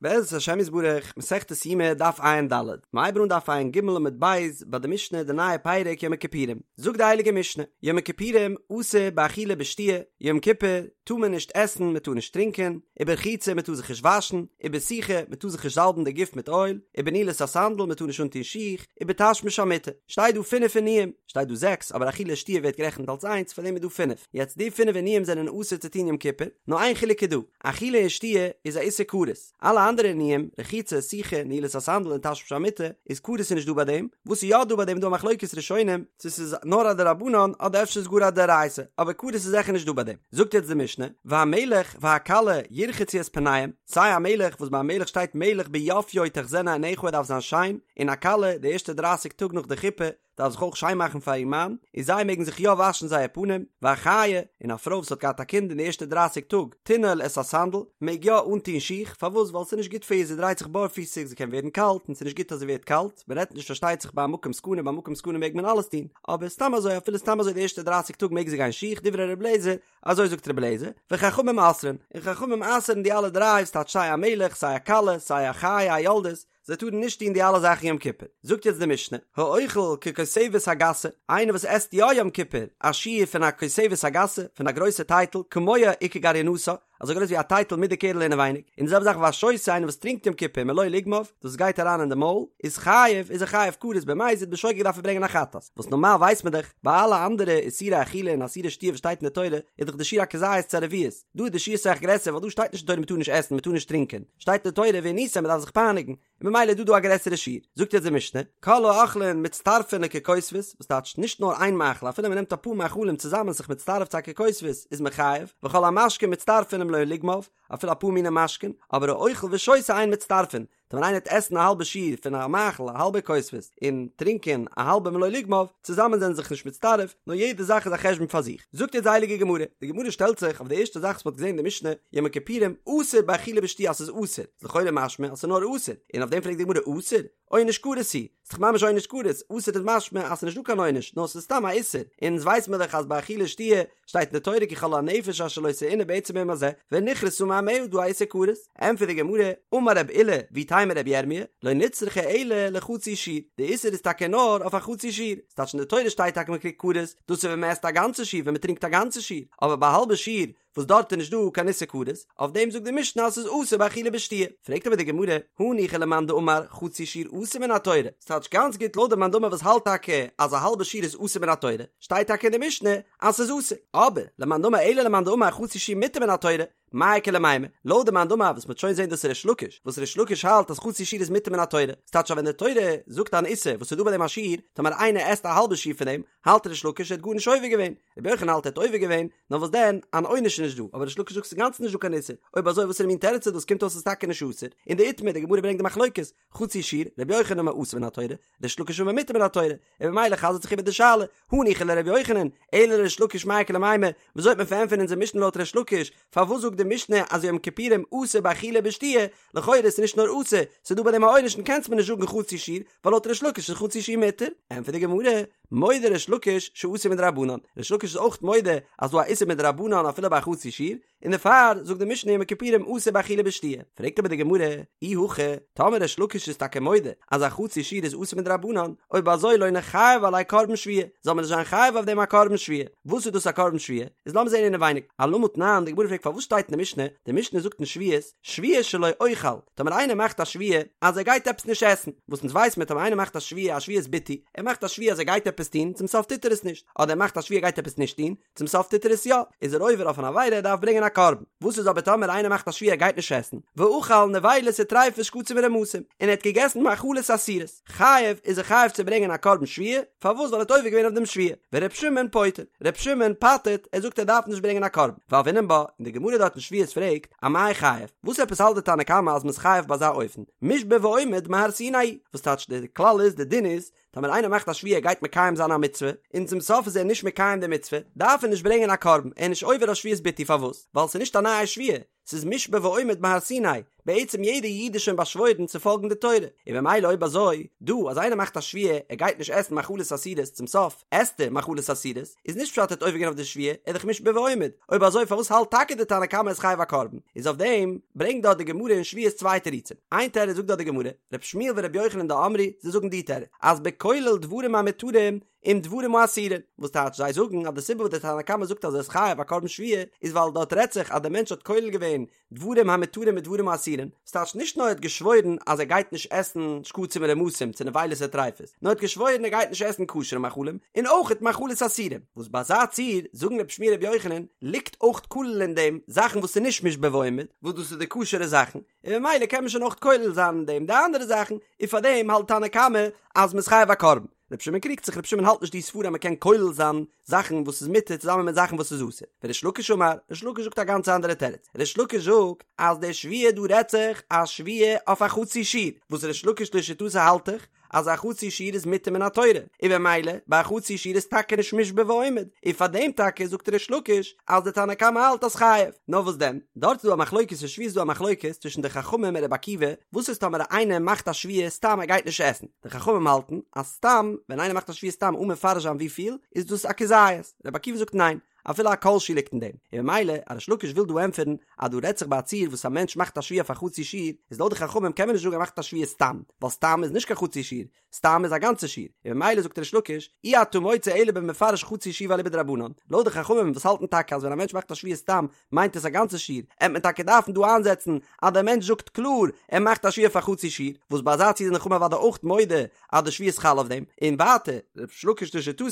בעזרת השם יתברך, מסכת יומא דף ע"ד, מ'הייבן אן דף ע"ג עמוד ב' ביי די משנה די נייע פרק יום הכיפורים, זאגט די הייליגע משנה, יום הכיפורים אסור באכילה ובשתיה, יום כיפור טאר מען נישט עסן מען טאר נישט טרינקען, וברחיצה מען טאר זיך נישט וואשן, ובסיכה מען טאר זיך נישט זאלבן די גוף מיט אויל, ובנעילת הסנדל מען טאר נישט אנטון שיך, ובתשמיש המיטה, שטייט דא פינף עינויים, שטייט דא זעקס אבער אכילה שתיה ווערט גערעכנט אלס איינס פאר דעם איז דא פינף, יעצט די פינף עינויים זענען אסור צו טון יום כיפור, נאר איין חילוק איז דא, אכילה און שתיה איז א איסור כרת, אלע אנדערע עינויים, רחיצה, סיכה, נעילת הסנדל און תשמיש המיטה, איז כרת איז נישט דא ביי דעם, וואס איז יא דא ביי דעם איז דא א מחלוקת ראשונים, צו ס'איז נאר א דרבנן אדער אפשר איז גאר א דאורייתא, אבער כרת איז זיכער נישט דא ביי דעם. זאגט יעצט די משנה, והמלך והכלה ירחצו את פניהם, סיי א מלך וואס ביי א מלך שטייט מלך ביפיו תחזינה עיניך ער דארף זיין שיין, און א כלה די ערשטע דרייסיג טאג נאך די חופה, דארף זיך אויך שיין מאכן פאר איר מאן, און זיי מעגן זיך יא וואשן זייער פנים, והחיה, און א פרוי וואס האט געהאט א קינד אין די ערשטע דרייסיג טאג, תנעול את הסנדל, מעג יא אנטון שיך, פארוואס? ווייל ס'איז נישט גוט פאר איר, זי דרייט זיך בארפיסיג, זי קען ווערן קאלט, און ס'איז נישט גוט אז זי ווערט קאלט, מען רעדט נישט פארשטייט זיך ביי א מקום סכנה, ביי א מקום סכנה מעג מען אלעס טון, אבער סתם אזוי אפילו סתם אזוי די ערשטע דרייסיג טאג מעג זי גיין שיך, דברי ר' אליעזר, אזוי זאגט ר' אליעזר, וחכמים אוסרין, און חכמים אסר'ן די אלע דריי, ס'טייטש סיי א מלך, סיי א כלה, סיי א חיה א יולדת, זיי טארן נישט טון די אלע זאכן יום כיפור. זאגט יעצט די משנה, האוכל ככותבת הגסה, איינער וואס עסט יא יום כיפור א שיעור פון א כותבת הגסה, פון א גרויסע טייטל, כמוה וכגרעינתה, אזוי גרויס ווי א טייטל מיט די קערל אינעווייניג, און די זעלבע זאך והשותה, איינער וואס טרינקט יום כיפור מלא לוגמיו, דאס גייט אריין אין די מויל, איז חייב, איזער חייב כרת במזיד בשוגג דארף ער ברענגען א חטאת. וואס נארמאל ווייסט מען דאך, ביי אלע אנדערע איסורי אכילה און איסורי שתיה וואס שטייט אין די תורה, איז דאך די שיעור א כזית צו א רביעית. דא איז די שיעור אסאך גרעסער ווייל דא שטייט נישט אין תורה מ'טאר נישט עסן מ'טאר נישט טרינקען, שטייט אין די תורה ועניתם מ'דארף זיך פייניגן, און ממילא איז דא דא א גרעסערע שיעור. זאגט יעצט די משנה, כל האוכלין מצטרפין לככותבת, וואס טייטשט נישט נאר איין מאכל אפילו מ'נעמט אפאר מאכלים צוזאמען זיך מצטרף צו א ככותבת איז מען חייב, וכל המשקין מצטרפין למלא לוגמיו, אפילו אפאר מיני משקין, אבער האוכל ושותה אין מצטרפין, טאמער איינער וועט עסן א האלבע שיעור פון א מאכל א האלבע כותבת און טרינקען א האלבע מלא לוגמיו, צוזאמען זענען זיך נישט מצטרף, נאר יעדע זאך איז א חשבון פאר זיך. זאגט יעצט די הייליגע גמרא, די גמרא שטעלט זיך אויף די ערשטע זאך וואס מ'האט געזען אין די משנה, יום הכיפורים אסור באכילה ושתיה אז ס'איז אסור, איז לכאורה משמע אז ס'איז נאר אסור, און אויף דעם פרעגט די גמרא אסור? עונש כרת הוא, ס'איז דאך ממש עונש כרת, אסור איז משמע אז ס'איז נישט דא קיין עונש, נאר ס'איז סתם א איסור, און אונז ווייס מיר דאך אז ביי אכילה ושתיה שטייט אין די תורה כי כל הנפש אשר לא תעונה בעצם היום הזה ונכרתה מעמיה דא א איסור כרת, ענטפערט די גמרא, אמר רב אילא ואיתימא רבי ירמיה, לא נצרכה אלא לחצי שיעור, די איסור איז טאקע נאר אויף א חצי שיעור, ס'טייטש אין די תורה שטייט טאקע מ'קריגט כרת, דאס איז ווען מ'עסט א גאנצע שיעור ווען מ'טרינקט א גאנצע שיעור, אבער ביי א האלבע שיעור וואס דארט איז נישט דא קיין איסור כרת, אויף דעם זאגט די משנה אז ס'איז אסור באכילה ובשתיה. פרעגט אבער די גמרא, הניחא למאן דאמר חצי שיעור אסור מן התורה, ס'טייטש גאנץ גוט לויט די מאן דאמר וואס האלט טאקע אז א האלבע שיעור איז אסור מן התורה, שטייט טאקע אין די משנה אז ס'איז אסור, אבער למאן דאמר אלא למאן דאמר חצי שיעור מותר מן התורה, מאי איכא למימר, לויט די מאן דאמר וואס מ'וועט שוין זען דאס איז ריש לקיש, וואס ריש לקיש האלט אז חצי שיעור איז מותר מן התורה, ס'טייטש אז ווען די תורה זאגט אן איסור וואס איז דא ביי דעם א שיעור, טאמער איינער עסט א האלבע שיעור פון דעם, האלט ריש לקיש ער האט גארנישט עובר געווען, רבי יוחנן האלט ער האט עובר געווען, נאר וואס דען, אן עונש איז נישט דא, אבער ריש לקיש זאגט ס'איז אינגאנצן נישט דא קיין איסור, אויב אזוי וואסערע מין תירוץ איז דאס, קומט אויס ס'איז טאקע נישט אסור, און דאיתמר, די גמרא ברענגט די מחלוקת, חצי שיעור, רבי יוחנן אמר אסור מן התורה, ריש לקיש אמר מותר מן התורה, און ממילא חזר'ט זיך איבער די שאלה, הניחא לרבי יוחנן, אלא לריש לקיש מאי איכא למימר, וויאזוי וועט מען פארענטפערן אונזער משנה לויט ריש לקיש, פארוואס זאגט די משנה אז יום כיפורים אסור באכילה ובשתיה, לכאורה איז נישט נאר אסור, ס'איז דא ביי דעם א עונש און קענסט מיר נישט זאגן חצי שיעור, ווייל לויט ריש לקיש איז חצי שיעור מותר. ענטפערט די גמרא, מודה ריש לקיש שאסור מדרבנן, ריש לקיש איז אויך מודה אז דא א איסור מדרבנן אפילו ביי א חצי שיעור, און דערפאר זאגט די משנה יום הכיפורים אסור באכילה ובשתיה. פרעגט אבער די גמרא, אי הכי, טאמער ריש לקיש איז טאקע מודה אז א חצי שיעור איז אסור מדרבנן, אויב אזוי לא ניחייב עליה קרבן שבועה, זאל מען נישט זיין חייב אויף דעם א קרבן שבועה. וואס איז דאס א קרבן שבועה? איז לאמיר זען אינעווייניג. אלמה תנן, די גמרא פרעגט פארוואס שטייט אין די משנה, די משנה זאגט אין שבועות, שבועה שלא אוכל, טאמער איינער מאכט א שבועה אז ער גייט עפעס נישט עסן, וואס אונז ווייס מיר טאמער איינער מאכט א שבועה א שבועת ביטוי, ער מאכט א שבועה אז ער גייט עפעס טון, צום סוף טוט ער עס נישט, אדער ער מאכט א שבועה ער גייט עפעס נישט טון, צום סוף טוט ער עס יא, איז ער עובר אויף אן עבירה ער דארף ברענגען א קרבן. וואס איז אבער טאמער איינער מאכט א שבועה ער גייט נישט עסן, ואכל נבילות וטריפות שקצים ורמשים, און ער האט געגעסן מאכלות אסורות, חייב איז ער חייב צו ברענגען א קרבן שבועה, פארוואס ווייל ער האט עובר געווען אויף דעם שבועה, ור' שמעון פוטר, ר' שמעון פטר'ט, ער זאגט ער דארף נישט ברענגען א קרבן, והוינן בה, און די גמרא דארט אין שבועות פרעגט, אמאי חייב, וואס עפעס האלט די תנא קמא אז מ'איז חייב ביי אזא אופן, מושבע ועומד מהר סיני, וואס טייטש די כלל איז די דין איז, טאמער איינער מאכט א שבועה ער גייט מקיים זיין א מצוה, און צום סוף איז ער נישט מקיים די מצוה, דארף ער נישט ברענגען א קרבן, ער איז נישט עובר אויף שבועת ביטוי פארוואס? ווייל ס'איז נישט א נייע שבועה, ס'איז מושבע ועומד מהר סיני, בעצם יעדע איד איז שוין באשוואוירן צו פאלגן די תורה, און במילא אויב אזוי, דא אז איינער מאכט א שבועה ער גייט נישט עסן מאכלות אסורות צום סוף עסט ער מאכלות אסורות, איז נישט פשט ער האט עובר געווען אויף די שבועה, ער איז דאך מושבע ועומד, אויב אזוי פארוואס האלט טאקע די תנא קמא איז חייב א קרבן? איז אויף דעם ברענגט דארט די גמרא אין שבועות צוויי תירוצים, איין תירוץ זאגט דארט די גמרא, ר' שמואל ור' יוחנן דאמרי, זיי זאגן די תירוץ, אז בכולל דברים המותרים עם דברים האסורים, וואס טייטש זיי זאגן אז די סיבה וואס די תנא קמא זאגט אז ער איז חייב א קרבן שבועה איז ווייל דארט רעדט זיך אז די מענטש האט כולל געווען דברים המותרים מיט דברים האסורים, וואס טייטש נישט נאר ער האט געשוואוירן אז ער גייט נישט עסן שקצים און רמסים צו נבילות וטריפות, נאר ער האט געשוואוירן ער גייט נישט עסן כשר'ע מאכלים און אויכעט מאכלות אסורים, וואס ביי אזא ציור זאגן רבי שמואל רבי יוחנן ליגט אויך כולל אין דעם זאכן וואס איז נישט מושבע ועומד, וואס דאס איז די כשר'ע זאכן, און ממילא קען מען שוין אויך כולל זיין אין דעם די אנדערע זאכן, און פארדעם האלט תנא קמא אז מ'איז חייב א קרבן. רבי שמעון קריגט זיך, רבי שמעון האלט נישט די סברא אז מ'קען כולל זיין זאכן וואס איז מותר צוזאמען מיט זאכן וואס איז אסור. וריש לקיש אמר, ריש לקיש זאגט א גאנץ אנדערע תירוץ. ריש לקיש זאגט אז די שבועה דא רעדט זיך א שבועה אויף א חצי שיעור, וואס ריש לקיש לשיטתו האלט דאך אז א חצי שיעור איז מותר מן התורה, און במילא ביי א חצי שיעור איז טאקע נישט מושבע ועומד, און פאר דעם טאקע זאגט ריש לקיש אז די תנא קמא האלט אז חייב. נאר וואס דען, דארט איז דא א מחלוקת אין שבועות איז דא א מחלוקת צווישן די חכמים און רבי עקיבא, וואס איז טאמער איינער מאכט א שבועה סתם ער גייט נישט עסן, די חכמים האלטן אז סתם ווען איינער מאכט א שבועה סתם אן מפרש זיין וויפיל, איז דאס א כזית, רבי עקיבא זאגט ניין, אפילו א כל שהוא ליגט אין דעם, און ממילא אז ריש לקיש וויל דא ענטפערן אז דא רעדט זיך ביי א ציור וואס א מענטש מאכט א שבועה אויף א חצי שיעור, איז לויט די חכמים קען מען נישט זאגן ער מאכט א שבועה סתם, ווייל סתם איז נישט קיין חצי שיעור, סתם איז א גאנצע שיעור, און ממילא זאגט ריש לקיש, אי אתה מוצא אלא במפרש חצי שיעור ואליבא דרבנן, לויט די חכמים וואס האלטן טאקע אז ווען א מענטש מאכט א שבועה סתם מיינט עס א גאנצע שיעור, עט מען טאקע דארפן דא איינזעצן אז דער מענטש זאגט קלאר ער מאכט א שבועה אויף א חצי שיעור, וואס ביי אזא ציור זענען חכמים אוודאי אויך מודה אז די שבועה איז חל אויף דעם, און ווייטער ריש לקיש לשיטתו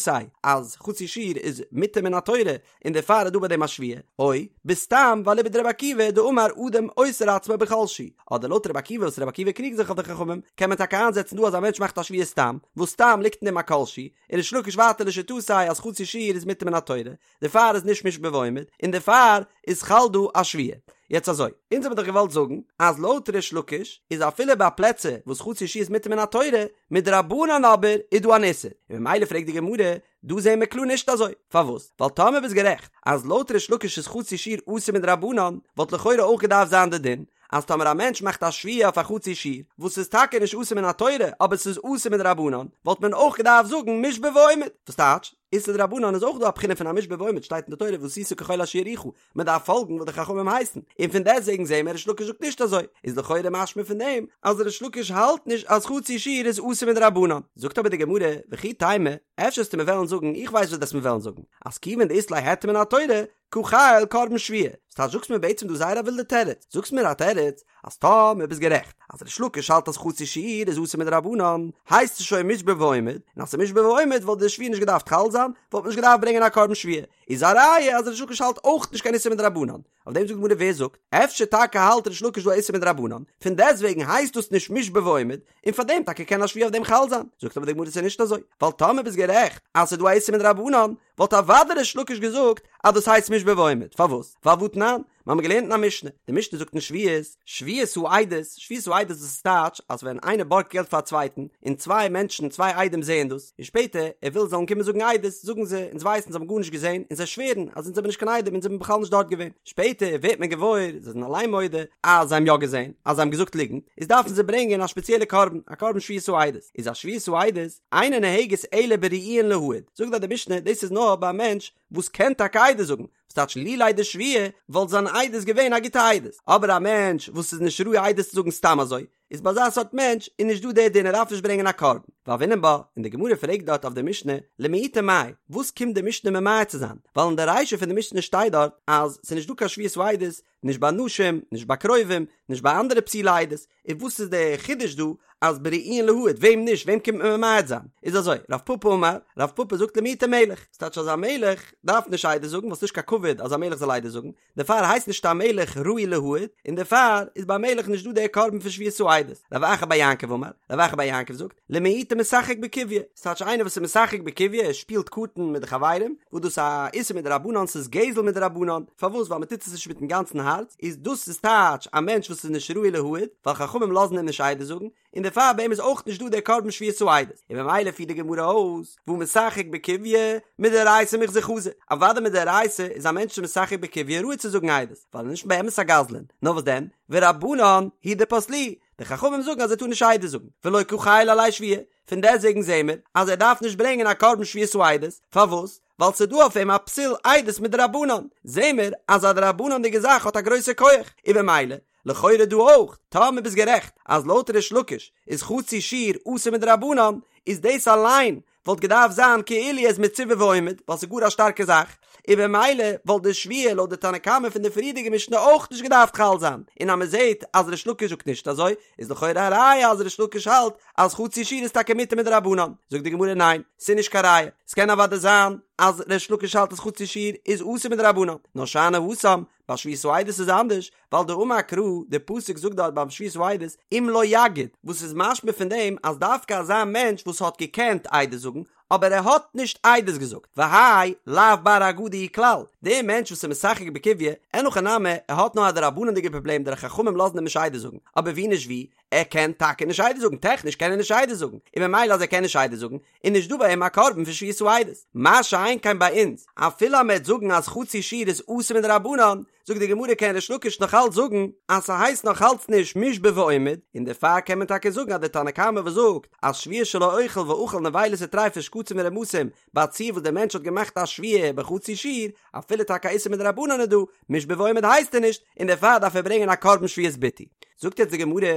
אז חצי שיעור איז מותר מן התורה און דערפאר איז דא ביי דעם א שבועה, או בסתם ואליבא דרבי עקיבא דאמר אדם אוסר עצמו בכל שהוא, אדער לויט רבי עקיבא וואס רבי עקיבא קריגט זיך אויף די חכמים, קען מען טאקע איינזעצן דא אז א מענטש מאכט א שבועה סתם, וואס סתם ליגט אין דעם א כל שהוא, און ריש לקיש ווייטער לשיטתו אז חצי שיעור איז מותר מן התורה, דערפאר איז נישט מושבע ועומד, און דערפאר איז חל דא א שבועה. יעצט אזוי, אונז האבן דאך געוואלט זאגן אז לויט ריש לקיש איז אפילו ביי פלעצער וואס חצי שיעור איז מותר מן התורה, מדרבנן אבער איז דא אן איסור, און ממילא פרעגט די גמרא, דא זעהן מיר קלאר נישט אזוי, פארוואס? ווייל טאמער ביסט גערעכט אז לויט ריש לקיש איז חצי שיעור אסור מדרבנן, וואלט לכאורה אויך געדארפט זיין די דין אז טאמער א מענטש מאכט א שבועה אויף א חצי שיעור, וואס איז טאקע נישט אסור מן התורה אבער ס'איז אסור מדרבנן, וואלט מען אויך געדארפט זאגן מושבע ועומד, וואס טייטש? איסור דרבנן איז אויך דא א בחינה פון א מושבע ועומד שטייט אין די תורה ועשית ככל אשר יורוך, מען דארף פאלגן וואס די חכמים הייסן, און פון דעסטוועגן זעהן מיר ריש לקיש זאגט נישט אזוי, איז לכאורה משמע פון דעם אז ריש לקיש האלט נישט אז חצי שיעור איז אסור מדרבנן. זאגט אבער די גמרא, וכי תימא, אפשר וועסטו מיר וועלן זאגן, איך ווייס וואס דו וועסט מיר וועלן זאגן, אז כיוון דאית ליה היתר מן התורה, קא חייל קרבן שבועה, ס'טייטש זאגסט מיר בעצם דא זייער א ווילדע תירוץ, זאגסט מיר א תירוץ אז טאמער ביסט גערעכט אז ריש לקיש האלט אז חצי שיעור איז אסור מדרבנן, הייסט עס שוין מושבע ועומד, און אז ס'איז מושבע ועומד וואלט די שבועה נישט געדארפט חל זיין, וואלט מען נישט געדארפט ברענגען א קרבן שבועה, איז א ראיה אז ריש לקיש האלט אויך נישט קיין איסור מדרבנן, אויף דעם זאגט די גמרא ווער זאגט? אפשר טאקע האלט ריש לקיש דא א איסור מדרבנן, פון דעסטוועגן הייסט דאס נישט מושבע ועומד, און פאר דעם טאקע קען א שבועה אויף דעם חל זיין, זאגט אבער די גמרא ס'איז נישט אזוי, ווייל טאמער ביסט גערעכט אז ס'איז דא א איסור מדרבנן, וואלט אוודאי ריש לקיש געזאגט אז דאס הייסט מושבע ועומד, פארוואס? ווייל והתנן, מיר האבן געלערנט אין א משנה, די משנה זאגט אין שבועות, שבועת העדות, שבועת העדות דאס איז טייטש אז ווען איינער בארגט געלט פאר א צווייטן, און צוויי מענטשן, צוויי עדים זעען דאס, און שפעטער ער וויל זיי זאלן קומען זאגן עדות, זאגן זיי, אונז ווייסן, זיי האבן גארנישט געזען, און זיי שווערן אז אונז זעמיר נישט קיין עדים, אונז זעמיר בכלל נישט דארט געווען. שפעטער ווערט מען געוואויר, זיי זענען אליין מודה, אז זיי האבן יא געזען, אז זיי האבן געזאגט ליגנט, איז דארפן זיי ברענגען א שפעציעלע קרבן, א קרבן שבועת העדות. איז א שבועת העדות, אינה נוהגת אלא בראויין להעיד. זאגט דארט די משנה, דאס איז נאר ביי א מענטש וואס קען טאקע עדות זאגן, וואס טייטש לולי דשביעה וואלט זיין עדות געווען א גוטע עדות, אבער א מענטש וואס איז נישט ראוי עדות צו זאגן סתם אזוי, איז ביי אזא סארט מענטש איז נישט דא דער דין ער דארף נישט ברענגען א קרבן. והוינן בה, און די גמרא פרעגט דארט אויף די משנה, למעוטי מאי, וואס קומט די משנה ממעט צו זיין, ווייל אין די רישא פון די משנה שטייט דארט אז ס'איז נישט דא קיין שבועת העדות, נישט ביי נשים, נישט ביי קרובים, נישט ביי אנדערע פסולי עדות, און וואס איז די חידוש דא אז בראויין להעיד, וועם נישט, וועם קומט מען ממעט זיין? איז אזוי, רב פפא אמר, רב פפא זאגט למעוטי מלך, ס'טייטש אז א מלך דארף נישט עדות זאגן ווייל ס'נישט קיין כבוד אז א מלך זאל עדות זאגן, דערפאר הייסט נישט א מלך ראוי להעיד, און דערפאר איז ביי א מלך נישט דא דער קרבן פון שבועת העדות. רב אחא בר יעקב אמר, רב אחא בר יעקב זאגט, למעוטי משחק בקוביא, ס'טייטש איינער וואס איז משחק בקוביא, ער שפילט קארטן מיט די חברים, וואס דאס איז א איסור מדרבנן, ס'איז גזל מדרבנן, פארוואס? ווייל מ'טוט עס נישט מיטן גאנצן הארץ, איז דאס איז טייטש א מענטש וואס איז נישט ראוי להעיד, ווייל חכמים לאזן אים נישט עדות זאגן, און דערפאר ביי אים איז אויך נישט דא דער קרבן שבועת העדות, און ממילא פירט די גמרא אויס, והא משחק בקוביא מדאורייתא מיחזי חזי, אוודאי מדאורייתא איז א מענטש משחק בקוביא ראוי צו זאגן עדות, ווייל ער איז נישט באמת א גזלן, נאר וואס דען, ורבנן הוא דפסלוהו, די חכמים זאגן אז ער טאר נישט עדות זאגן, ולא קא חיילא עליה שבועה, פון דעסטוועגן זעהן מיר אז ער דארף נישט ברענגען א קרבן שבועת העדות, פארוואס? ווייל ס'איז דא אויף אים א פסול עדות מדרבנן, זעהן מיר אז א דרבנן'דיגע זאך האט א גרויסע כח, און במילא, לכאורה דא אויך, טאמער ביסט גערעכט אז לויט ריש לקיש איז חצי שיעור אסור מדרבנן, איז דאס אליין וואלט געדארפט זיין כאילו ער איז מצווה ועומד, ווייל ס'איז גאר א שטארקע זאך, און במילא וואלט די שבועה לויט די תנא קמא פון די פריערדיגע משנה אויך נישט געדארפט חל זיין, און אז מ'זעהט אז ריש לקיש זאגט נישט אזוי, איז לכאורה א ראיה אז ריש לקיש האלט אז חצי שיעור איז טאקע מותר מדרבנן, זאגט די גמרא ניין, ס'איז נישט קיין ראיה, ס'קען אוודאי זיין אז ריש לקיש האלט אז חצי שיעור איז אסור מדרבנן, נאר שאני התם, ביי שבועת העדות איז אנדערש, ווייל דאמר קרא, די פסוק זאגט דארט ביים שבועת העדות אם לא יגיד, וואס איז משמע פון דעם אז דווקא אזא מענטש וואס האט געקענט עדות זאגן, אבער ער האט נישט עדות געזאגט, והאי לאו בר אגדה הוא כלל, דער מענטש וואס איז משחק בקוביא, אין הכי נמי, ער האט נאר א דרבנן'דיגע פראבלעם די חכמים לאזן אים נישט עדות זאגן, אבער ווי נישט ווי, ער קען טאקע נישט עדות זאגן, טעכניש קען ער נישט עדות זאגן, און ממילא אז ער קען נישט עדות זאגן, איז נישט דא ביי אים א קרבן פון שבועת העדות. מה שאין כן ביי אונז, אפילו אז מ'עט זאגן אז חצי שיעור איז אסור מדרבנן, זאגט די גמרא קען ריש לקיש נאך אלץ זאגן אז ס'הייסט נאך אלץ נישט מושבע ועומד, און דערפאר קען מען טאקע זאגן אז דער תנא קמא וואס זאגט אז שבועה של האוכל ואכל נבילות וטריפות שקצים ורמשים ביי א ציור וואס דער מענטש האט געמאכט א שבועה בחצי שיעור, אפילו טאקע א איסור מדרבנן איז דא, מושבע ועומד הייסט ער נישט, און דערפאר דארף ער ברענגען א קרבן שבועת ביטוי. זאגט יעצט די גמרא,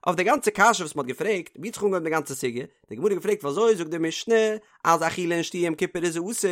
אויף די גאנצע קשיא וואס מ'האט געפרעגט, ווי האט זיך אנגעהויבן די גאנצע סוגיא? די גמרא האט געפרעגט וואזוי זאגט די משנה אז אכילה און שתייה יום כיפור איז אסור,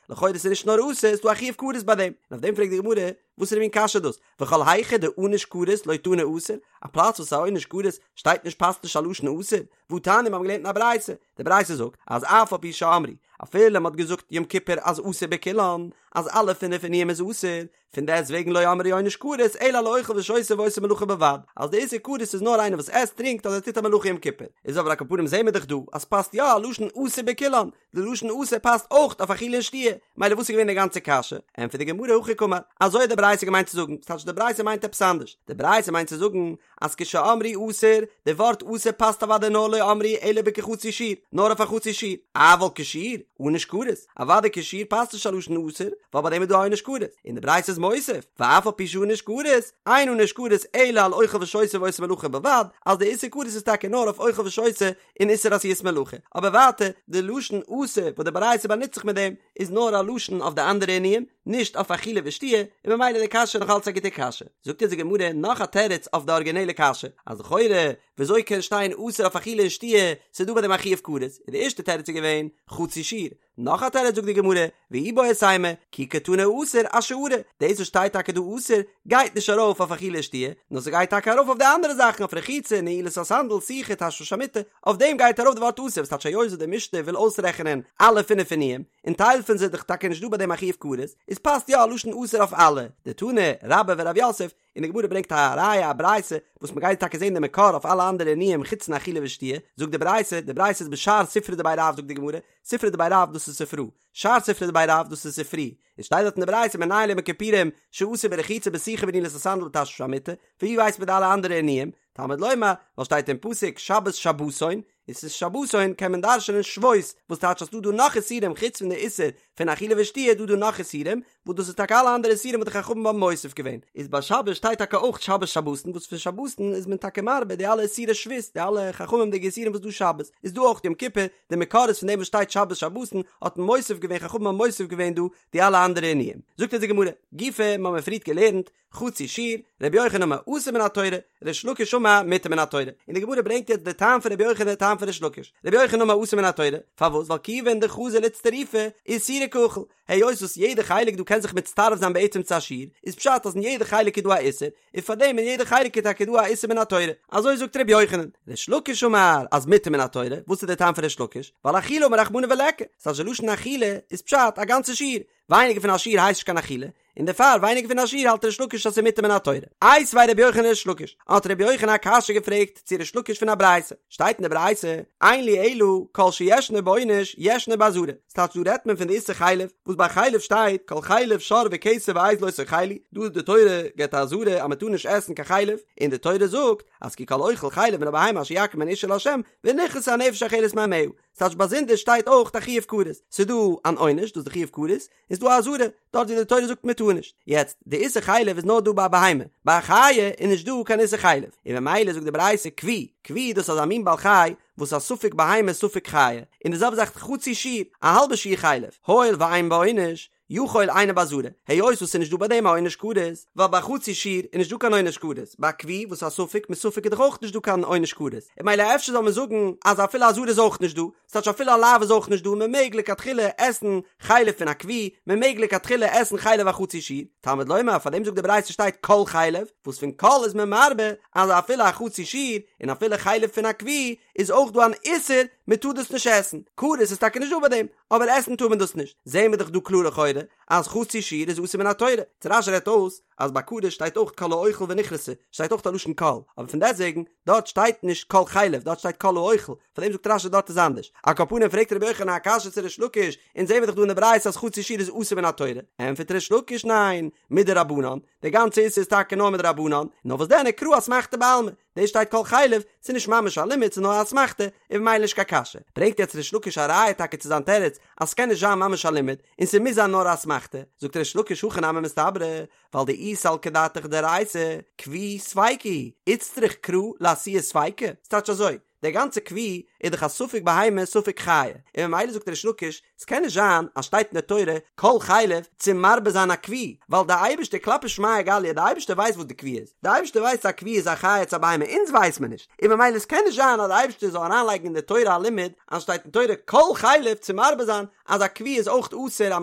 לכאורה איז נישט נאר אסור, ס'איז דא א חיוב כרת ביי דעם, און אויף דעם פרעגט די גמרא, וואסערע מין קשיא איז דאס, וכל היכא דענוש כרת לא תנא אסור, א פלאץ וואס איז א עונש כרת שטייט נישט פאסט נישט א לשון אסור, והתניא מיר האבן געלערנט אין א ברייתא, די ברייתא זאגט אז אף על פי שאמרו, אפילו מ'האט געזאגט יום כיפור אז אסור בכולן, אז אלע פינף עינויים איז אסור, פון דעסט וועגן לא אמרו עונש כרת אלא על האוכל ושותה ועושה מלאכה בלבד, אז די איסור כרת איז נאר איינער וואס עסט טרינקט אדער טוט א מלאכה יום כיפור, איז אבער על כל פנים זעהן מיר דאך דא אז ס'פאסט יא א לשון אסור בכולן, די לשון אסור פאסט אויך אויף אכילה און שתיה, מילא וואס איז געווען די גאנצע קשיא? ענטפערט די גמרא הכי קאמר, אזוי האט די ברייתא געמיינט צו זאגן, ס'טייטש די ברייתא מיינט עפעס אנדערש, די ברייתא מיינט צו זאגן אז כשאמרו אסור, די ווארט אסור פאסט אוודאי נאר לא אמרו אלא בכחצי שיעור, נאר אויף א חצי שיעור, אבל כשיעור, ענוש כרת, אוודאי כשיעור פאסט נישט א לשון אסור, ווייל ביי דעם איז דא א עונש כרת, און די ברייתא איז מוסיף, ואף על פי שענוש כרת, אין ענוש כרת אלא על אוכל ושותה ועושה מלאכה בלבד, אז די איסור כרת איז טאקע נאר אויף אוכל ושותה און איסור עשיית מלאכה, אבער ווייטער, די לשון אסור וואס די ברייתא באנוצט זיך מיט דעם, איז נאר א לשון אויף די אנדערע עינויים, נישט אויף אכילה ושתיה, און ממילא די קשיא נאך אלץ א גוטע קשיא. זאגט אונז די גמרא נאך א תירוץ אויף די ארגינעלע קשיא, אז לכאורה וויאזוי קען שטיין אסור אויף אכילה און שתיה, ס'איז דא ביי דעם א חיוב כרת, און די ערשטע תירוץ איז געווען, חצי שיעור. נאך א תירוץ זאגט די גמרא, ואיבעית אימא, כי קתני אסור אשארא, דאס וואס שטייט טאקע דא אסור, גייט נישט ארויף אויף אכילה ושתיה, נאר ס'גייט טאקע ארויף אויף די אנדערע זאכן, אויף רחיצה, נעילת הסנדל, סיכה, תשמיש המיטה, אויף דעם גייט ארויף די ווארט אסור, וואס טייטש היות וואס די משנה וויל אויסרעכענען אלע פינף עינויים, און טייל פון זיי איז דאך טאקע נישט דא ביי דעם א חיוב כרת, איז פאסט יא א לשון אסור אויף אלע, דתני רבה ורב יוסף, און די גמרא ברענגט א ראיה א ברייתא וואס מען גייט טאקע זען די מקור אויף אלע אנדערע עינויים חוץ פון אכילה ושתיה, זאגט די ברייתא, די ברייתא איז בשאר ספרי דבי רב זאגט די גמרא, ספרי דבי רב דאס איז ספרא, שאר ספרי דבי רב דאס איז ספרי, עס שטייט דארט אין די ברייתא מנין ליום הכיפורים שאסור ברחיצה בסיכה בנעילת הסנדל בתשמיש המיטה, פון ווי ווייסט מען די אלע אנדערע עינויים? תלמוד לומר, ווייל שטייט אין פסוק שבת שבתון, און ס'איז שבתון קען מען דרש'נען שבות, וואס טייטש אז ס'דא דא נאך איסורים חוץ פון די איסור פון אכילה ושתיה איז דא דא נאך איסורים, וואס דאס איז טאקע אלע אנדערע איסורים וואס די חכמים האבן מוסיף געווען, איז ביי שבת שטייט טאקע אויך שבת שבתון וואס פון שבתון איז מען טאקע מרבה די אלע איסורי שבות, די אלע חכמים'דיגע איסורים וואס דא שבת, איז דא אויך יום כיפור, די מקור איז פון דעם וואס שטייט שבת שבתון האט מען מוסיף געווען חכמים האבן מוסיף געווען דא די אלע אנדערע עינויים. זאגט אונז די גמרא, גופא, מ'האמיר פריערט געלערנט, חצי שיעור, רבי יוחנן אמר אסור מן התורה, ריש לקיש אמר מותר מן התורה. און די גמרא ברענגט יעצט די טעם פון רבי יוחנן די טעם פון ריש לקיש. רבי יוחנן אמר אסור מן התורה, פארוואס? ווייל כיוון דחזי לאיצטרופי, איסורא קאכיל. היות וואס יעדע חלק דא קען זיך מצטרף זיין בעצם צו א שיעור, איז פשט אז אין יעדע חלק איז דא א איסור, און פארדעם אין יעדע חלק איז טאקע דא א איסור מן התורה. אזוי זאגט רבי יוחנן. ריש לקיש אמר אז מותר מן התורה, וואס איז די טעם פון ריש לקיש? ווייל אכילה אמר רחמנא וליכא, ס'טייטש די לשון אכילה איז פשט א גאנצע שיעור, ווייניגער פון א שיעור הייסט נישט קיין אכילה, און דערפאר ווייניגער פון א שיעור האלט ריש לקיש אז ס'איז מותר מן התורה. איתיביה רבי יוחנן לריש לקיש, האט רבי יוחנן א קשיא געפרעגט צו ריש לקיש פון א ברייתא, שטייט אין די ברייתא, אין לי אלא כל שישנו בעונש ישנו באזהרה, ס'טייטש דא רעדט מען פון די איסור חלב, וואס ביי חלב שטייט כל חלב שור וכשב ועז לא תאכלו, דא איז די תורה געבט א אזהרה אז מ'טאר נישט עסן קיין חלב, און די תורה זאגט אז כי כל אוכל חלב מן הבהמה אשר יקריב ממנה אשה לה' ונכרתה הנפש האוכלת מעמיה, ס'טייטש באזונדער שטייט אויך א חיוב כרת, ס'איז דא אן עונש, דאס איז די חיוב כרת, און ס'איז דא א אזהרה, דארט ווי די תורה זאגט מען טאר נישט. יעצט, די איסור חלב איז נאר דא ביי א בהמה, ביי א חיה איז נישט דא קיין איסור חלב, און ממילא זאגט די ברייתא כוי, כוי דאס איז אזא מין בעל חי וואס איז א ספק בהמה ספק חיה, און די זעלבע זאך חצי שיעור, א האלבע שיעור חלב, הואיל ואין בו עונש, יכול אינו באזהרה, היות וואס ס'איז נישט דא ביי דעם א עונש כרת, ווייל ביי חצי שיעור איז נישט דא קיין עונש כרת, ביי כוי וואס איז א ספק מספק איז דאך אויך נישט דא קיין עונש כרת, און ממילא אפשר זאל מען זאגן אז אפילו אזהרה איז אויך נישט דא, ס'טייטש אפילו א לאו איז אויך נישט דא, מען מעג לכתחילה עסן חלב פון א כוי, מען מעג לכתחילה עסן חלב א חצי שיעור, תלמוד לומר פאר דעם זאגט די ברייתא שטייט כל חלב, וואס פון כל איז מען מרבה אז אפילו א חצי שיעור און אפילו חלב פון א כוי איז אויך דא אן איסור מען טאר דאס נישט עסן, כרת איז טאקע נישט דא ביי דעם, אבער עסן טאר מען דאס נישט, זעהן מיר דאך דא קלאר לכאורה אז חצי שיעור איז אסור מן התורה, יעצט רש"י רעדט אויס אז ביי כרת שטייט אויך כל האוכל ונכרתה, שטייט אויך א לשון כל, אבער פון דעסטוועגן דארט שטייט נישט כל חלב דארט שטייט כל האוכל, פאר דעם זאגט רש"י דארט איז אנדערש, על כל פנים פרעגט רבי יוחנן א קשיא צו ריש לקיש, אונז זעהן מיר דאך דא אין די ברייתא אז חצי שיעור איז אסור מן התורה, ענטפערט ריש לקיש ניין, מדרבנן, די גאנצע איסור איז טאקע נאר מדרבנן, נאר וואס דען וקרא אסמכתא בעלמא, דאס שטייט כל חלב, ס'איז נישט ממש א לימוד ס'איז נאר א אסמכתא, און ממילא נישט קיין קשיא. ברענגט יעצט ריש לקיש א ראיה טאקע צו זיין תירוץ אז ס'קען נישט זיין ממש א לימוד, און ס'מוז זיין נאר א אסמכתא, זאגט ריש לקיש הכי נמי מסתברא, ווייל דאי סלקא דעתך דאורייתא, כוי ספיקא הוא, איצטריך קרא לאתויי ספיקא, ס'טייטש אזוי, דער גאנצער כוי איז דאך א ספק בהמה ספק חיה, און ממילא זאגט ריש לקיש, ס'קען נישט זיין אז שטייט אין די תורה כל חלב צו מרבה זיין א כוי, ווייל די אייבערשטער כלפי שמיא גליא, די אייבערשטער ווייסט וואס די כוי איז, די אייבערשטער ווייסט צו א כוי איז א חיה צו א בהמה, אונז ווייס מיר נישט, און ממילא ס'קען נישט זיין אז די אייבערשטער זאל אריינלייגן אין די תורה א לימוד אז שטייט אין תורה כל חלב צו מרבה זיין אז א כוי איז אויך אסור אז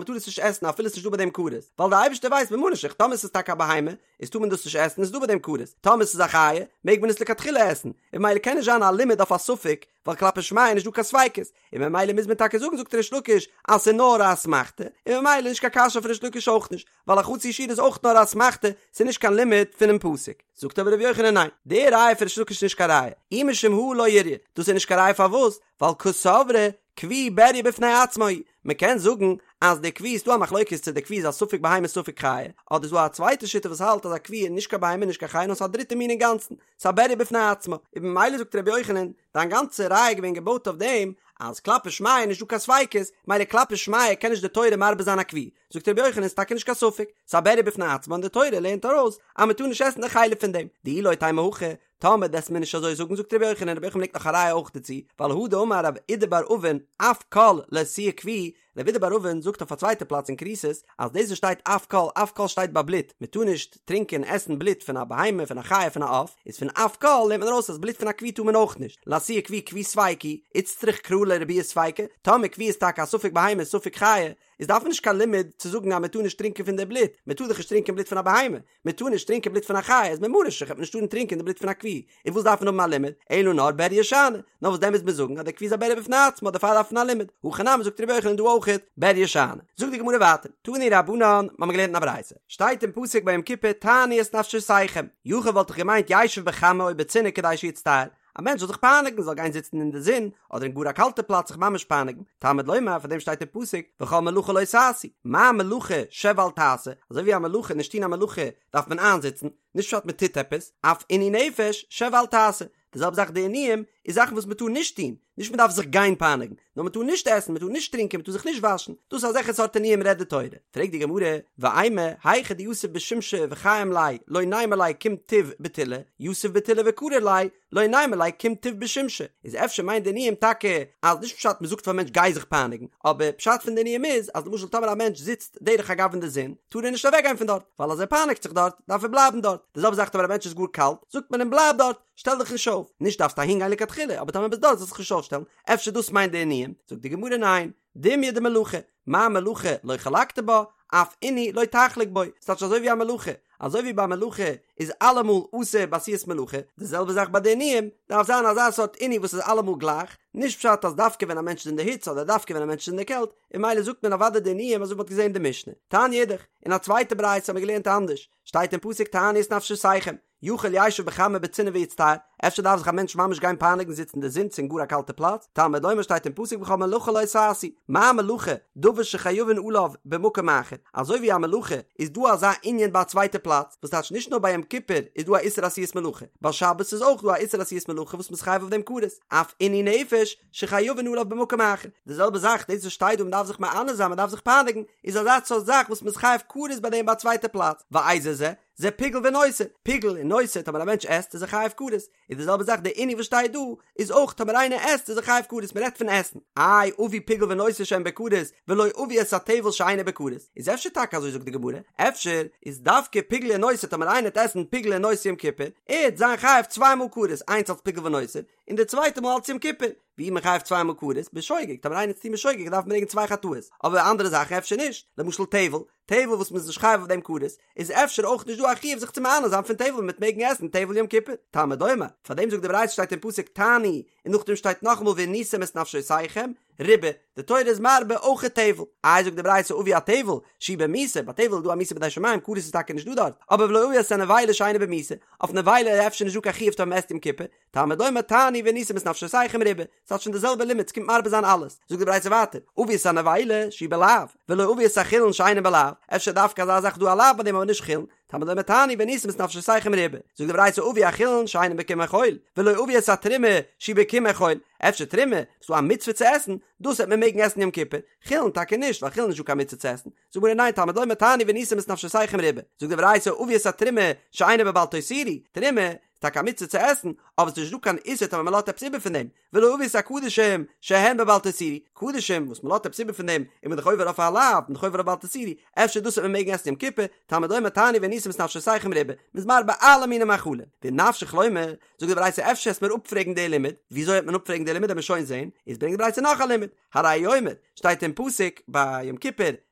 מ'טאר עס נישט עסן אפילו ס'נישט דא ביי דעם כרת, ווייל די אייבערשטער ווייסט ממה נפשך טאמער ס'איז טאקע א בהמה איז טאר מען דאס נישט עסן איז דא ביי דעם כרת, טאמער ס'איז א חיה מעג מען עס לכתחילה עסן, און ממילא קען נישט זיין א לימוד אויף א ספק, ווייל כלפי שמיא איז נישט דא קיין ספיקות, און ממילא מוז מען טאקע זאגן זאגט ריש לקיש אז ס'איז נאר א אסמכתא, און ממילא נישט קיין קשיא אויף ריש לקיש אויך נישט, ווייל א חצי שיעור איז אויך נאר א אסמכתא, ס'איז נישט קיין לימוד פונעם פסוק. זאגט אבער ר' יוחנן ניין, די ראיה פון ריש לקיש איז נישט קיין ראיה, אי משום הא לא איריא, דאס איז נישט קיין ראיה פארוואס? ווייל קסברי כוי בריה בפני עצמו הוא, מען קען זאגן אז די כוי איז דא א מחלוקת צו די כוי איז א ספק בהמה ספק חיה, אדער איז דא א צווייטע שיטה וואס האלט אז א כוי איז נישט קיין בהמה נישט קיין חיה נאר ס'איז א דריטע מין אינגאנצן, ס'איז א בריה בפני עצמו, און ממילא זאגט רבי יוחנן, דיין גאנצע ראיה איז געווען געבויט אויף דעם אז כלפי שמיא איז נישט דא קיין ספיקות, מילא כלפי שמיא קען נישט די תורה מרבה זיין א כוי, זאגט רבי יוחנן איז טאקע נישט קיין ספק, ס'איז א בריה בפני עצמו און די תורה לערנט ארויס אז מען טאר נישט עסן די חלב פון דעם, דאי לא תימא הכי, טאמער וועסט מיר נישט אזוי זאגן זאגט רבי יוחנן, רבי יוחנן ברענגט נאך א ראיה אויך דערצו, ווייל הא דאמר רב אידי בר אבין אף כל לאתויי כוי, רב אידי בר אבין זאגט אויף א צווייטע פלאץ אין כריתות אז דאס וואס שטייט אף כל אף כל שטייט ביי בלוט, מען טאר נישט טרינקען עסן בלוט פון א בהמה פון א חיה פון א עוף, איז פון אף כל לערנט מען ארויס אז בלוט פון א כוי טאר מען אויך נישט, לאתויי כוי כוי ספיקא הוא, איצטריך קרא לרבויי ספיקא, טאמער כוי איז טאקע א ספק בהמה ספק חיה, איז דארף מען נישט קיין לימוד צו זאגן אז מען טאר נישט טרינקען פון די בלוט, מען טאר דאך נישט טרינקען בלוט פון א בהמה, מען טאר נישט טרינקען בלוט פון א חיה, איז ממה נפשך וועט מען נישט טארן טרינקען די בלוט פון א כוי, און וואס דארף מען האבן א לימוד, אלא נאר בריה שאני, נאר וואס דען מוז מען זאגן אז דער כוי איז א בריה בפני עצמו דערפאר דארף מען א לימוד, הכא נמי זאגט רבי יוחנן דא אויכעט בריה שאני. זאגט די גמרא ווייטער, תנו רבנן, מ'האמיר געלערנט אין א ברייתא, שטייט אין פסוק ביי יום כיפור תענו את נפשותיכם, יכול וואלט איך געמיינט ישב בחמה או בצינה כדי שיצטער, א מענטש זאל זיך פייניגן, זאל גיין זיצן אין די זון, אדער אין גאר א קאלטע פלאץ זיך ממש פייניגן, תלמוד לומר, פאר דעם שטייט אין פסוק, וכל מלאכה לא תעשו, מה מלאכה שב ואל תעשה, אזוי ווי א מלאכה, נישט טון א מלאכה, דארף מען איינזיצן, נישט פשט מען טוט עפעס, אף עינוי נפש, שב ואל תעשה, די זעלבע זאך די עינויים, איז זאכן וואס מען טאר נישט טון, נישט מען דארף זיך גיין פייניגן, נאר מען טאר נישט עסן, מען טאר נישט טרינקען, מען טאר זיך נישט וואשן, דאס אזעלכע סארט עינויים רעדט די תורה. פרעגט די גמרא, ואימא, היכא דיתיב בשומשא וחיים ליה, לא נימא ליה קום תיב בטולא, יתיב בטולא וקריר ליה, לא נימא ליה קום תיב בשומשא. איז אפשר מיינט די עינויים טאקע אז נישט פשט מען זאגט פאר מענטש גיי זיך פייניגן, אבער פשט פון די עינויים איז אז למשל טאמער א מענטש זיצט דרך אגב אין די זון, טאר ער נישט אוועקגיין פון דארט, ווייל אז ער פייניגט זיך דארט, דארף ער בלייבן דארט. די זעלבע זאך טאמער א מענטש איז גאר קאלט, זאגט מען אים בלייב דארט, שטעל דיך נישט אויף, נישט דארפסט אהין גיין לכתחילה, אבער טאמער ביסט דארט זאלסט זיך נישט אויפשטעלן, אפשר דאס מיינט די עינויים? זאגט די גמרא ניין, דומיא דמלאכה, מה מלאכה לא חלקת בה, אף עינוי לא תחלוק בו, ס'טייטש אזוי ווי א מלאכה, אזוי ווי ביי מלאכה איז אלעמאל אסור בעשיית מלאכה, די זעלבע זאך ביי די עינויים, דארף זיין אזא סארט עינוי וואס איז אלעמאל גלייך, נישט פשט אז דווקא ווען א מענטש איז אין די היץ אדער דווקא ווען א מענטש איז אין די קעלט, און ממילא זאגט מען אוודאי די עינויים אזוי ווי מ'האט געזען אין די משנה. תניא אידך, אין א צווייטע ברייתא האט מען געלערנט אנדערש, שטייט אין פסוק תענו את נפשותיכם, יכול ישב בחמה ובצינה ויצטער, אפשר דארף זיך א מענטש ממש גיין פייניגן זיצן אין די זון צו אין גאר א קאלטע פלאץ, תלמוד לומר שטייט אין פסוק וכל מלאכה לא תעשו, מה מלאכה דבר שחייבין עליו במקום אחר, אזוי ווי א מלאכה איז דא אזא ענין ביי א צווייטע פלאץ, וואס טייטש נישט נאר ביי יום כיפור איז דא א איסור עשיית מלאכה, ביי שבת איז אויך דא א איסור עשיית מלאכה וואס מ'איז חייב אויף דעם כרת, אף עינוי נפש שחייבין עליו במקום אחר, די זעלבע זאך דאס וואס שטייט דא מ'דארף זיך מענה זיין מ'דארף זיך פייניגן, איז אזא סארט זאך וואס מ'איז חייב כרת ביי דעם ביי א צווייטע פלאץ, ואיזה זה? זה פיגול ונותר, פיגול און נותר טאמער א מענטש עסט איז ער חייב כרת, איז די זעלבע זאך די עינוי וואס שטייט דא איז אויך טאמער איינער עסט איז ער חייב כרת מען רעדט פון עסן, איי אביא פיגול ונותר שהן בכרת ולא אביא את הטבל שאינו בכרת, איז אפשר טאקע אזוי זאגט די גמרא, אפשר איז דווקא פיגול און נותר טאמער איינער וועט עסן פיגול און נותר יום כיפור, ער וועט זיין חייב צוויי מאל כרת איינס אלס פיגול ונותר און די צווייטע מאל אלס יום כיפור, ווי איז מען חייב צוויי מאל כרת? בשוגג, טאמער איינער וועט עס טון בשוגג דארף מען ברענגען צוויי חטאות, אבער אנדערע זאכן אפשר נישט, למשל טבל, טבל וואס מ'איז נישט חייב אויף דעם כרת, איז אפשר אויך נישט דא א חיוב זיך צו מענה זיין פון טבל מ'וועט מעגן עסן טבל יום כיפור. תלמוד לומר, פאר דעם זאגט די ברייתא שטייט אין פסוק תענו, און נאכדעם שטייט נאכאמאל ועניתם את נפשותיכם, ריבה, די תורה איז מרבה אויך טבל. איי זאגט די ברייתא אביא הטבל, שהוא במיתה, ביי טבל איז דא א מיתה בידי שמים, כרת איז טאקע נישט דא דארט, אבער ולא אביא את הנבילה שאינה במיתה, אויף נבילה איז אפשר נישט דא קיין חיוב טאמער מ'עסט יום כיפור, תלמוד לומר תענו ועניתם את נפשותיכם ריבה, ס'האט שוין די זעלבע לימוד, ס'קומט מרבה זיין אלעס. זאגט די ברייתא ווייטער, אביא את הנבילה שהיא בלאו, ולא אביא את החולין שאינן בלאו, אפשר דווקא אזא זאך דא א לאו ביי דעם אבער נישט חולין, תלמוד לומר תענו ועניתם את נפשותיכם ריבה. זאגט די ברייתא אביא החולין שאינן בקמעי חול, ולא אביא את התרומה שהיא בקמעי חול, אפשר תרומה, ס'דא א מצוה צו עסן, דאס וועט מען מעגן עסן יום כיפור, חולין טאקע נישט, ווייל חולין איז נישטא קיין מצוה צו עסן. זאגט די גמרא ניין תלמוד לומר תענו ועניתם את נפשותיכם ריבה. זאגט די ברייתא אביא את התרומה שאינה בבל תותירו, תרומה, טאקע א מצוה צו עסן, אבער ס'איז נישט דא קיין איסור טאמער מ'לאזט עפעס איבער פון דעם, ולא אביא את הקדשים שהן בבל תותירו, קדשים וואס מ'לאזט עפעס איבער פון דעם איז מען דאך עובר אויף א לאו, מען דאך עובר אויף בל תותירו, אפשר דאס וועט מען מעגן עסן יום כיפור, תלמוד לומר תענו ועניתם את נפשותיכם ריבה, מ'איז מרבה אלע מיני מאכלים, ואם נפשך לומר, זאגט די ברייתא אפשר וועסט מיר אפפרעגן די לימוד, וויאזוי וועט מען אפפרעגן די לימוד וועט מען שוין זען, איז ברענגט די ברייתא נאך א לימוד, הרי הוא אומר, שטייט אין פסוק ביי יום כיפור,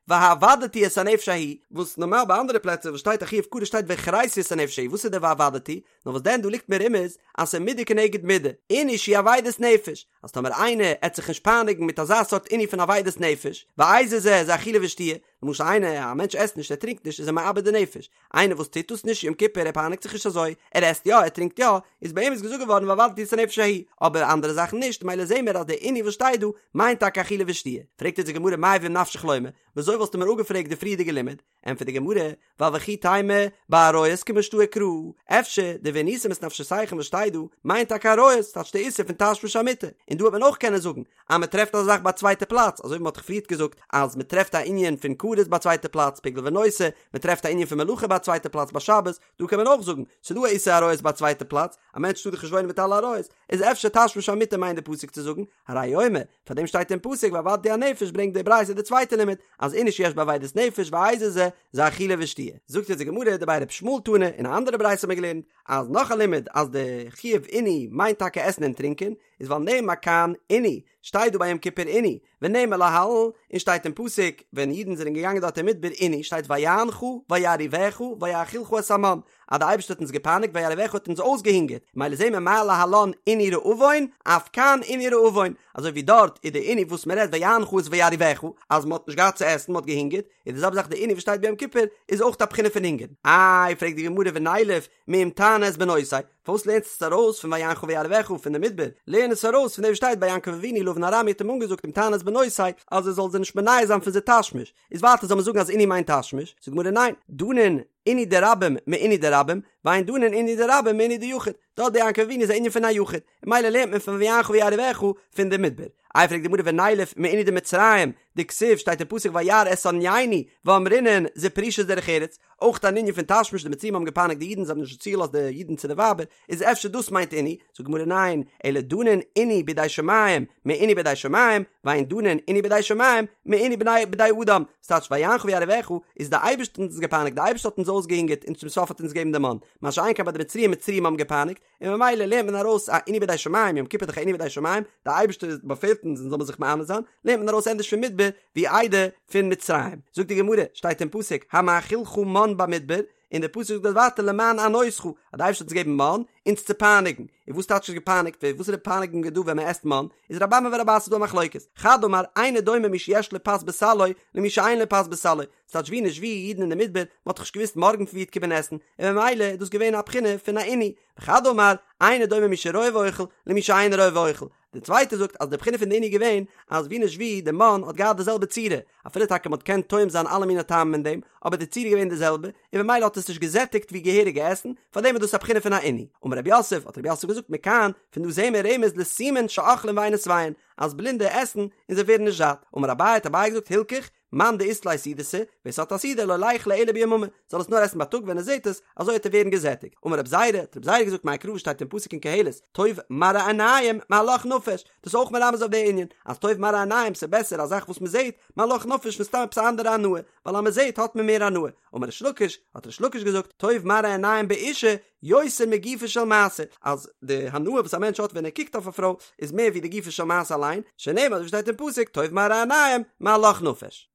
והאבדתי את הנפש ההיא, וואס נארמאל ביי אנדערע פלעצער וואס שטייט א חיוב כרת שטייט והכרתי את הנפש ההיא, וואס איז די והאבדתי? נאר וואס דען דא ליגט מרומז אז ס'איז מידה כנגד מידה, עינוי שהוא אבידת נפש, אז טאמער איינער עט זיך נישט פייניגן מיט אזא סארט עינוי פון אבידת נפש, ואיזה זה זה אכילה ושתיה, למשל איינער, א מענטש עסט נישט ער טרינקט נישט איז ער מאבד די נפש, איינער וואס טוט דאס נישט יום כיפור ער פייניגט זיך נישט אזוי, ער עסט יא ער טרינקט יא, איז ביי אים איז געזאגט געווארן והאבדתי את הנפש ההיא, אבער אנדערע זאכן נישט, מילא זעהן מיר אז די עינוי וואס שטייט דא מיינט טאקע אכילה ושתיה, פרעגט אונז די גמרא מאי ואם נפשך לומר, וויאזוי וואלסטו מיר אפגעפרעגט די פריערדיגע לימוד? ענטפערט די גמרא, ווייל וכי תימא בעריות כמשתעי קרא, אפשר די ועניתם את נפשותיכם וואס שטייט דא מיינט טאקע עריות, טייטש די איסור פון תשמיש המיטה, און דא וועט מען אויך קענען זאגן אז מען טרעפט אזא זאך ביי א צווייטע פלאץ, אזוי ווי מען האט דאך פריערט געזאגט אז מען טרעפט א ענין פון כרת ביי א צווייטע פלאץ, פיגול ונותר, מען טרעפט א ענין פון מלאכה ביי א צווייטע פלאץ ביי שבת, דא קען מען אויך זאגן, ס'איז דא א איסור עריות ביי א צווייטע פלאץ, א מענטש טאר דאך נישט וואוינען מיט אלע עריות, איז אפשר תשמיש המיטה מיינט די פסוק צו זאגן, הרי הוא אומר, פאר דעם שטייט אין פסוק והאבדתי הנפש ברענגט די ברייתא די צווייטע לימוד, אז עינוי שיש בו אבידת נפש ואיזה זה, זה אכילה ושתיה. זאגט יעצט די גמרא דבי ר' ישמעאל תנא, אין א אנדערע ברייתא האט מען געלערנט, אז נאך א לימוד אז די חיוב עינוי מיינט טאקע עסן און טרינקען, איז ווייל נאמר כאן עינוי, שטייט דא ביי יום כיפור עינוי, ונאמר להלן, און שטייט אין פסוק ווען אידן זענען געגאנגען דארט אין מדבר עינוי, שטייט ויענך וירעיבך ויאכילך את המן, אז די אייבערשטער האט אונז געפייניגט וירעיבך האט אונז אויסגעהונגערט, מילא זעהן מיר מה להלן עינוי רעבון, אף כאן עינוי רעבון, אזוי ווי דארט איז די עינוי וואס מען רעדט ויענך איז וירעיבך, אז מען האט נישט געהאט צו עסן, מען האט געהונגערט, איז די זעלבע זאך די עינוי וואס שטייט ביי יום כיפור איז אויך א בחינה פון הונגער. איי פרעגט די גמרא ונילף מאם תענה את בנותי, פארוואס לערנסטו עס ארויס פון ויענך וירעיבך פון די מדבר, לערן עס ארויס פון דעם וואס שטייט ביי יעקב אבינו לבן הארמי האט אים אנגעזאגט אם תענה את בנותי אז ער זאל זיי נישט מונע זיין פון זיי תשמיש, איז ווייטער זאל מען זאגן אז עינוי מיינט תשמיש, זאגט די גמרא ניין, דנין עינוי דרבים מעינוי דרבים, ואין דנין עינוי דרבים מעינוי דיחיד, דארט ביי יעקב אבינו איז א ענין פון א יחיד, און מילא לערנט מען פון ויענך וירעיבך פון די מדבר. איי פרעגט די גמרא ונילף מעינוי דמצרים, דכתיב שטייט אין פסוק וירא את ענינו ואמרינן זו פרישות דרך ארץ, אויך אן ענין פון תשמיש די מצרים האבן געפייניגט די אידן זיי האבן נישט צוגעלאזט די אידן צו די ווייבער, איז אפשר דאס מיינט עינוי, זאגט די גמרא ניין, אלא דנין עינוי בידי שמים מעינוי בידי שמים, ואין דנין עינוי בידי שמים מעינוי בני בידי אדם, ס'טייטש ויענך וירעיבך איז די אייבערשטער האט אונז געפייניגט די אייבערשטער האט אונז אויסגעהונגערט און צום סוף האט אונז געגעבן די מן, מה שאין כן ביי די מצריים מצריים האבן געפייניגט, און ממילא לערנט מען ארויס א עינוי בידי שמים, יום כיפור איז דאך א עינוי בידי שמים, די אייבערשטער באפעלט אונז אונז זאל מען זיך מענה זיין, לערנט מען ארויס ענדערש פון מדבר ווי איידער פון מצרים. זאגט די גמרא, שטייט אין פסוק, המאכילך מן במדבר, און דער פסוק זאגט דארט ווייטער למען ענותך, אז אז די אייבערשטער האט אונז געגעבן מן אונז צו פייניגן, און וואס טייטש געפייניגט ווערן, וואסערע פייניגונג איז דא ווען מען עסט מן, איז רבי אמי ורבי אסי דא א מחלוקת, חד אמר אינו דומה מי שיש לו פת בסלו למי שאין לו פת בסלו, ס'טייטש ווי נישט ווי אידן אין די מדבר, מ'האט דאך נישט געוואוסט מארגן פון ווי וועט קומען עסן, און ממילא איז דאס געווען א בחינה פון א עינוי, וחד אמר אינו דומה מי שרואה ואוכל למי שאינו רואה ואוכל, די צווייטע זאגט אז די בחינה פון די עינוי איז געווען אז ווי נישט ווי די מן האט געהאט די זעלבע צורה, אפילו טאקע מ'האט געקענט טועם זיין אלע מיני טעמים אין דעם, אבער די צורה איז געווען די זעלבע, און ממילא האט עס נישט געזעטיגט ווי געהעריגע עסן, פארדעם איז דאס א בחינה פון א עינוי. אמר רב יוסף, האט רב יוסף געזאגט מכאן, פון דא זעהן מיר רמז לסומין שאוכלין ואינן שבעין, אז בלינדע עסן און זיי ווערן נישט זאט. אמר אביי, האט אביי געזאגט הלכך, מאן דאית ליה סעודתא, ווער ס'האט א סעודה לא ליכלה אלא ביממא, זאל עס נאר עסן בייטאג ווען ער זעט עס, אזוי וועט ער ווערן געזעטיגט. אמר רב זירא, האט רב זירא געזאגט מאי קרא וואס שטייט אין פסוק אין קהלת, טוב מראה עיניים מהלך נפש, דאס איז אויך מרמז אויף די ענין, אז טוב מראה עיניים ס'איז בעסער א זאך וואס מ'זעט, מהלך נפש פון סתם עפעס א אנדערע הנאה, ווייל אז מ'זעט האט מען מער הנאה. אמר ריש לקיש, האט ריש לקיש געזאגט, טוב מראה עיניים באישה, יותר מגופה של מעשה, אז די הנאה וואס א מענטש האט ווען ער קוקט אויף א פרוי איז מער ווי די גופה של מעשה אליין, שנאמר אזוי ווי שטייט אין פסוק טוב מראה עיניים מהלך נפש.